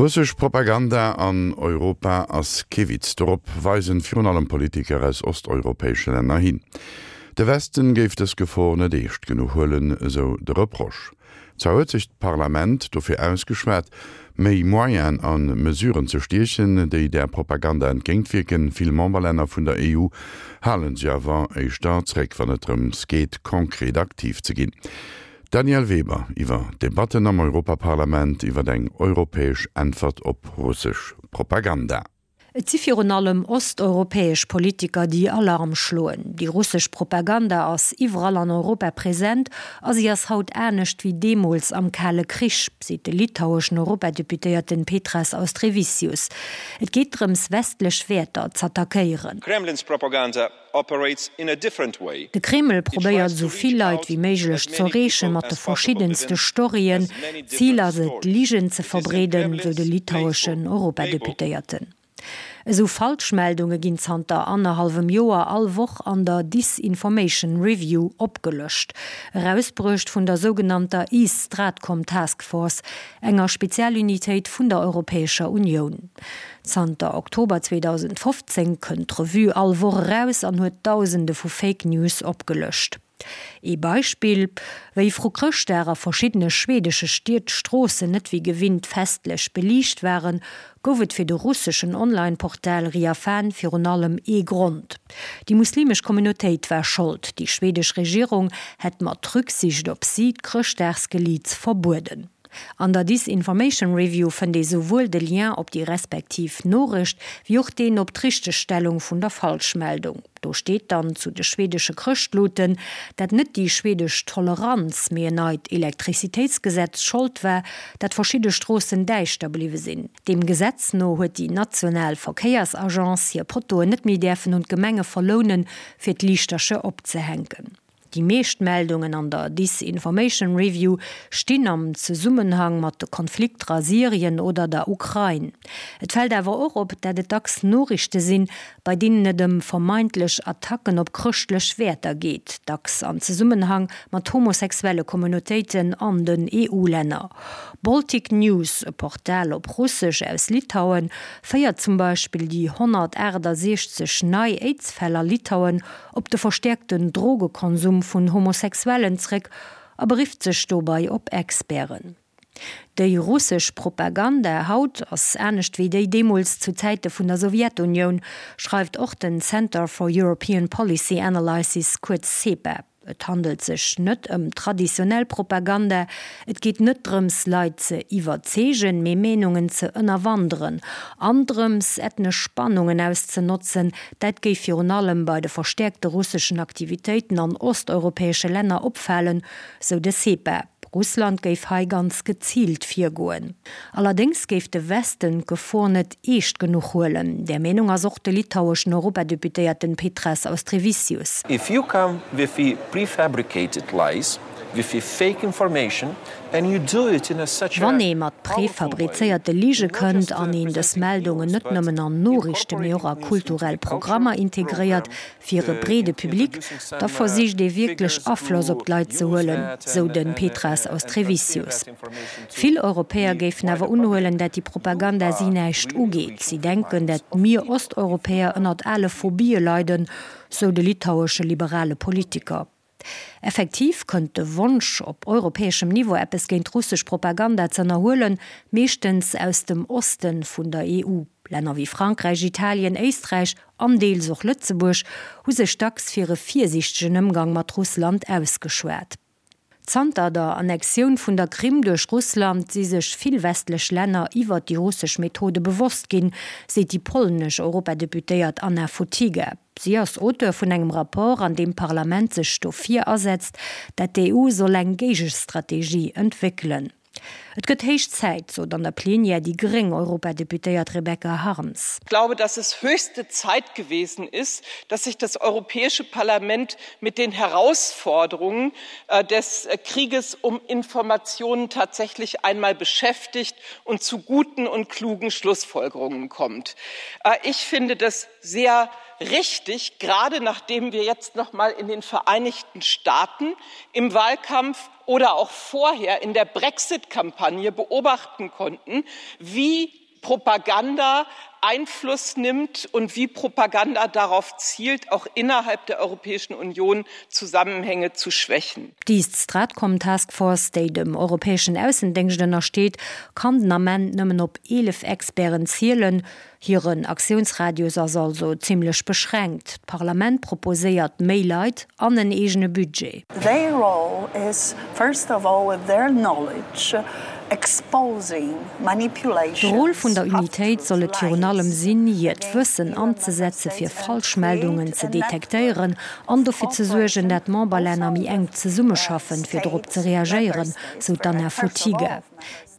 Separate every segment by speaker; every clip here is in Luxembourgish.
Speaker 1: Russesch Propaganda an Europa ass kee Witz. Dorop weisen virun allem Politiker aus osteuropäesche Länner hin. De Westen géif dës Gefor net eescht genuch huelen, esou de Reproche. Zwar huet sech d'Parlament dofir ausgeschwat, méi Moyenen a Mesuren ze stiechen, déi där Propaganda entgéintwierken. Vill Memberlänner vun der EU hale sech awer éischter zréck, wann et drëms geet, konkret aktiv ze ginn. D'Danièle Weber iwwer d'Debatten am Europaparlament iwwer eng europäesch Äntwert op russesch Propaganda.
Speaker 2: Et si virun allem osteuropäesch Politiker, déi Alarm schloen. Déi russesch Propaganda ass iwwerall an Europa present a si ass haut anescht wéi deemools am Kale Krich, seet de litaueschen Europadeputéierten Petras Austrevicius. Et geet drëms, westlech Wäerter z'attackéieren.
Speaker 3: Kremlin's propaganda operates in a different way.
Speaker 2: De Kreml probéiert esou vill Leit wéi méiglech z'erreeche mat de verschiddenste Storyen. Zil ass et, Ligen ze verbreeden, sou de litaueschen Europadeputéierten. Esou Falschmeldunge ginn zanter annerhallwem Joer all Woch an der Disinformation Review opgelëscht, erausbruecht vun der sougenannter East Stratcom Task Force, enger Spezialunitéit vun der Europäescher Unioun. Zanter Oktober 2015 kënnt d'Revue all Woch eraus an huet Dausende vu Fake News opgelëscht. Ee Beispill, Wéi vru Chrëschtdag a verschiddene schwedesche Stied d'Stroossen net wéi gewinnt festlech beliicht waren, gouf et fir de russeschen Online-Portal Riafan virun allem ee Grond, Déi muslimesch Communautéit war Schold, déi schwedesch Regierung hätt mat Rücksicht op si d'Chrëschtdagsgeliits verbueden. An der Disinformation Review fënnt ee souwuel de Lien op déi respektiv Noriicht, wéi och deen op d'Richtegstellung vun der Falschmeldung. Do steet dann zu de schwedesche Chrëschtluten, dat net déi schwedesch Toleranz, mee en neit Elektrizitéitsgesetz Schold war, dat verschidde Stroossen däischter bliwwe sinn. Deem Gesetz no huet déi national Verkéiersagence hir Pottoen net méi däerfen un d'Gemenge verlounen, fir d'Liichtercher opzehänken. Déi meescht Meldungen an der Disinformation Review stinn am Zesummenhang mat de Konflikter a Syrien oder der Ukrain. Et fält awer och op, dat et dacks Noriichte sinn, bei deenen et ëm vermeintlech Attacken op chrëschtlech Wäerter geet, dacks an Zesummenhang mat homosexuelle Communautéiten an den EU-Länner. Baltic News, e Portal op Russesch aus Litauen, féiert zum Beispill déi 168 nei Aids-Fäll a Litauen op de verstäerkten Drogekonsum vun Homosexuellen zréck a berifft sech dobei op Experten. Déi russesch Propaganda haut ass anescht wéi déi deemools zu Zäite vun der Sowjetunioun, schreift och den Center for European Policy Analysis, kuerz CEPA. Et handelt sech net ëm traditionell Propaganda, et geet net drëms Leit ze iwwerzeegen, mee Meenungen ze ënnerwanderen an drëms ethnesch Spannungen auszenotzen. Dat géif virun allem bei de verstäerkte russeschen Aktivitéiten an osteuropäesche Länner opfalen, sou de CEPA. Russland géif hei ganz geziilt virgoen. Allerdéngs géif de Westen d'Gefor net eescht genuch huelen. Där Meenung ass och de litaueschen Europadeputéierten Petras Austrevicius.
Speaker 3: If you come with the prefabricated lies, with the fake information and you do it in a such a
Speaker 2: Wann ee mat prefabrizéierte Lige kënnt an een dës Meldungen net nëmmen an Noriichten, mee och a kulturell Programmer integréiert, fir e breede Public, da versicht ee wierklech Afloss op d'Leit ze huelen, sou de Petras Austrevicius. Vill Europäer géifen awer unhuelen, dat déi Propaganda si näischt ugeet. Si denken, dat mir Osteuropäer ënnert ale Phobie leiden, sou de litauesche liberale Politiker. Effektiv kënnt de Wonsch, op europäeschem Niveau eppes géint russesch Propaganda z'ënnerhuelen, meeschtens aus dem Oste vun der EU. Länner wéi Frankräich, Italien, Éisträich an deels och Lëtzebuerg hu sech dacks fir e virsiichtegen Ëmgang mat Russland ausgeschwat. Zanter der Annexioun vun der Krim duerch Russland si sech vill westlech Länner iwwert déi russesch Methode bewosst ginn, seet déi polnesch Europadeputéiert Anna Fotyga. Si ass Auteur vun engem Rapport, an deem d'Parlament sech dofir asetzt, dat d'EU soll eng Géigestrategie entwéckelen. Et gëtt héich Zäit, sot an der Plenière déi gréng Europadeputéiert Rebecca Harms.
Speaker 4: Ich glaube, dass es höchste Zeit gewesen ist, dass sich das Europäische Parlament mit den Herausforderungen des Krieges um Informationen tatsächlich einmal beschäftigt und zu guten und klugen Schlussfolgerungen kommt. Ich finde das sehr richtig, gerade nachdem wir jetzt noch mal in den Vereinigten Staaten im Wahlkampf. oder auch vorher in der Brexit-Kampagne beobachten konnten, wie Propaganda Einfluss nimmt und wie Propaganda darauf zielt, auch innerhalb der Europäischen Union Zusammenhänge zu schwächen.
Speaker 2: Déi Stratcom Task Force, déi dem europäeschen Aussendéngscht ënnersteet, kann den Ament nëmmen op 11 Experten zielen. Hiren Aktiounsradius ass also zimmlech beschränkt. D'Parlament proposéiert méi Leit an en eegene Budget.
Speaker 5: Their role is first of all with their knowledge exposing
Speaker 2: De Rôle vun der Unitéit soll et virun allem sinn, hiert Wëssen anzesetze fir Falschmeldungen ze detektéieren an dofir ze suergen, dat d'Memberlänner méi enk zesummeschaffen, fir dorop ze reagéieren, sou d'Anna Fotyga.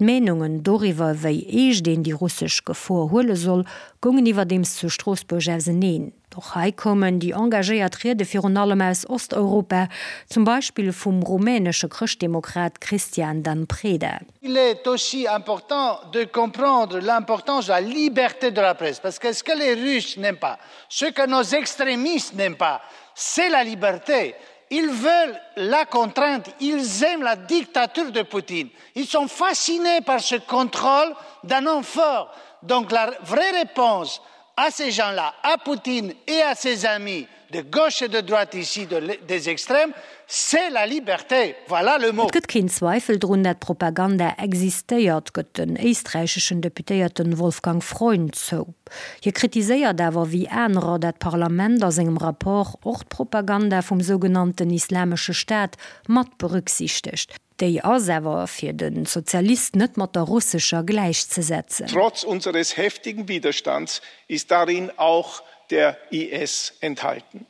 Speaker 2: D'Meenungen doriwwer, wéi eescht een déi russesch Gefor huele soll, goungen iwwerdeems zu Stroossbuerg auseneen. Och hei koumen déi engagéiert Riede virun allem aus Osteuropa, zum Beispill vum rumänesche Chrëschtdemokrat Cristian Dan Preda.
Speaker 6: Il est aussi important de comprendre l'importance de la liberté de la presse, parce que ce que les Russes n'aiment pas, ce que nos extrémistes n'aiment pas, c'est la liberté. Ils veulent la contrainte, ils aiment la dictature de Poutine. Ils sont fascinés par ce contrôle d'un homme fort. Donc la vraie réponse à ces gens-là, à Poutine et à ses amis de gauche et de droite ici de, des extrêmes, c'est la liberté. Voilà le mot.
Speaker 2: Et gëtt keen Zweifel drun, dat Propaganda existéiert, gëtt den éisträicheschen Deputéierten Wolfgang Freund zou. Hie kritiséiert awer wéi anerer dat d'Parlament a sengem Rapport och d'Propaganda vum sougenannten Islamesche Staat mat berücksichtegt. Déi ass awer fir de Sozialist net mat der russescher gläichzesetzen.
Speaker 7: Trotz unseres heftigen Widerstands ist darin auch der IS enthalten.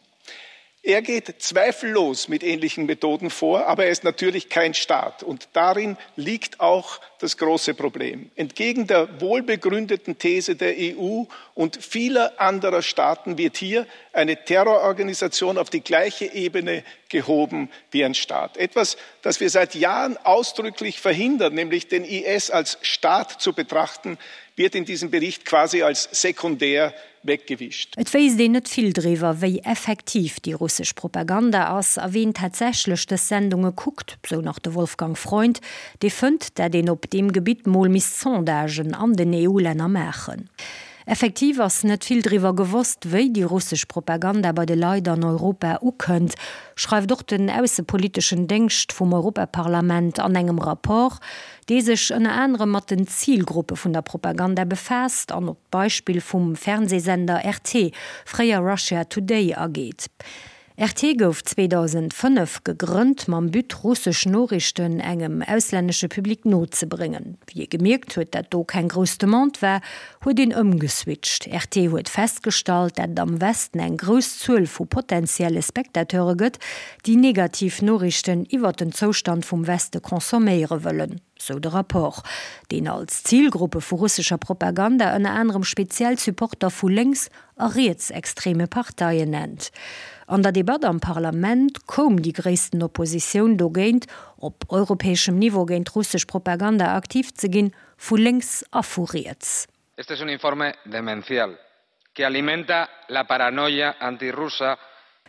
Speaker 7: Er geht zweifellos mit ähnlichen Methoden vor, aber er ist natürlich kein Staat. Und darin liegt auch das große Problem. Entgegen der wohlbegründeten These der EU und vieler anderer Staaten wird hier eine Terrororganisation auf die gleiche Ebene gehoben wie ein Staat. Etwas, das wir seit Jahren ausdrücklich verhindern, nämlich den IS als Staat zu betrachten, wird in diesem Bericht quasi als sekundär weggewischt.
Speaker 2: Et wéisst een net vill driwwer, wéi effektiv déi russesch Propaganda ass a ween tatsächlech dës Sendunge kuckt, sou nach de Wolfgang Freund, dee fënnt, dat een op deem Gebitt mol misst Sondagen an den EU-Länner maachen. Effektiv ass net vill driwwer gewosst, wéi déi russesch Propaganda bei de Leit an Europa ukënnt, schreift och den aussepoliteschen Déngscht vum Europaparlament an engem Rapport, dee sech ënner anerem mat den Zilgruppe vun der Propaganda befaasst an op d'Beispill vum Fernseesender RT, fréier Russia Today, ageet. RT gouf 2005 gegrënnt mam But, russesch Noriichten engem auslännesche Public nozebréngen. Wéi ee gemierkt huet, dat do keng grouss Demande war, huet een ëmgeswitcht. RT huet festgestallt, dat et am Westen eng grouss Zuel vu potentielle Spectateure gëtt, déi negativ Noriichten iwwert den Zoustand vum Weste consomméiere wëllen, sou de Rapport, deen als Zilgruppe vu russescher Propaganda ënner anerem speziell Supporter vu lénks a rietsextreme Parteien nennt. An der Debatt am Parlament koum déi gréissten Oppositioun dogéint, op europäeschem Niveau géint russesch Propaganda aktiv ze ginn, vu lénks a vu riets.
Speaker 8: Este es un informe demencial que alimenta la paranoia antirrusa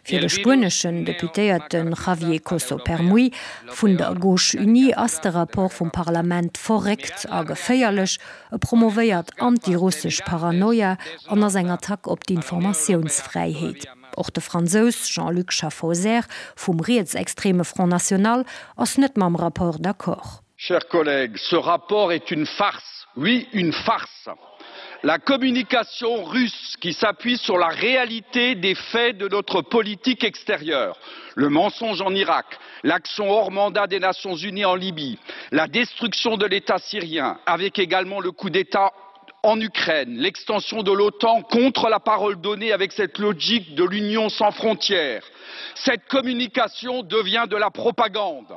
Speaker 2: Fir de spueneschen Deputéierte Javier Coso Permuy vun der Gauche Unie ass de Rapport vum Parlament verréckt a geféierlech. E promovéiert antirussesch Paranoia an ass eng Attack op d'Informatiounsfräiheet. Och de Fransous Jean-Luc Schaffhauser vum rietsextreme Front National ass net mam Rapport d'accord.
Speaker 9: Chers collègues, ce rapport est une farce, oui une farce. La communication russe qui s'appuie sur la réalité des faits de notre politique extérieure, le mensonge en Irak, l'action hors mandat des Nations unies en Libye, la destruction de l'État syrien, avec également le coup d'État en Ukraine, l'extension de l'OTAN contre la parole donnée avec cette logique de l'Union sans frontières. Cette communication devient de la propagande.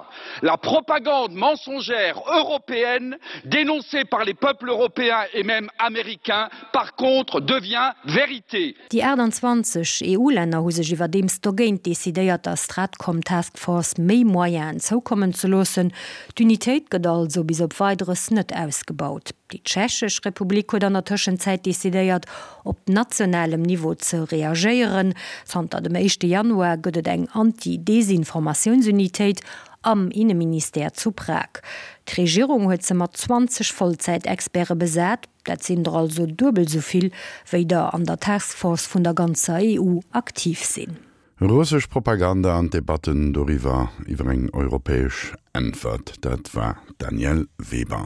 Speaker 9: La propagande mensongère européenne, dénoncée par les peuples européens et même américains, par contre devient vérité.
Speaker 2: Déi 28 EU-Länner hu sech iwwerdeems dogéint decidéiert, der Stratcom Task Force méi Moyenen zoukommen ze loossen. D'Unitéit gëtt also bis op Weideres net ausgebaut. Déi Tschechesch Republik huet an der Tëschenzäit decidéiert, op nationalem Niveau ze reagéieren. Zanter dem éischte Januar gëtt et eng Anti-Desinformatiounsunitéit. am Inneministère zu Prag. D'Regierung huet se mat 20 Vollzäitexperte besat, dat sinn der also duebel esou vill, wéi der an der Taskforce vun der ganzer EU aktiv sinn.
Speaker 1: Russesch Propaganda an d'Debatten doriwwer, iwwer eng europäesch Äntwert, dat war d'Danièle Weber.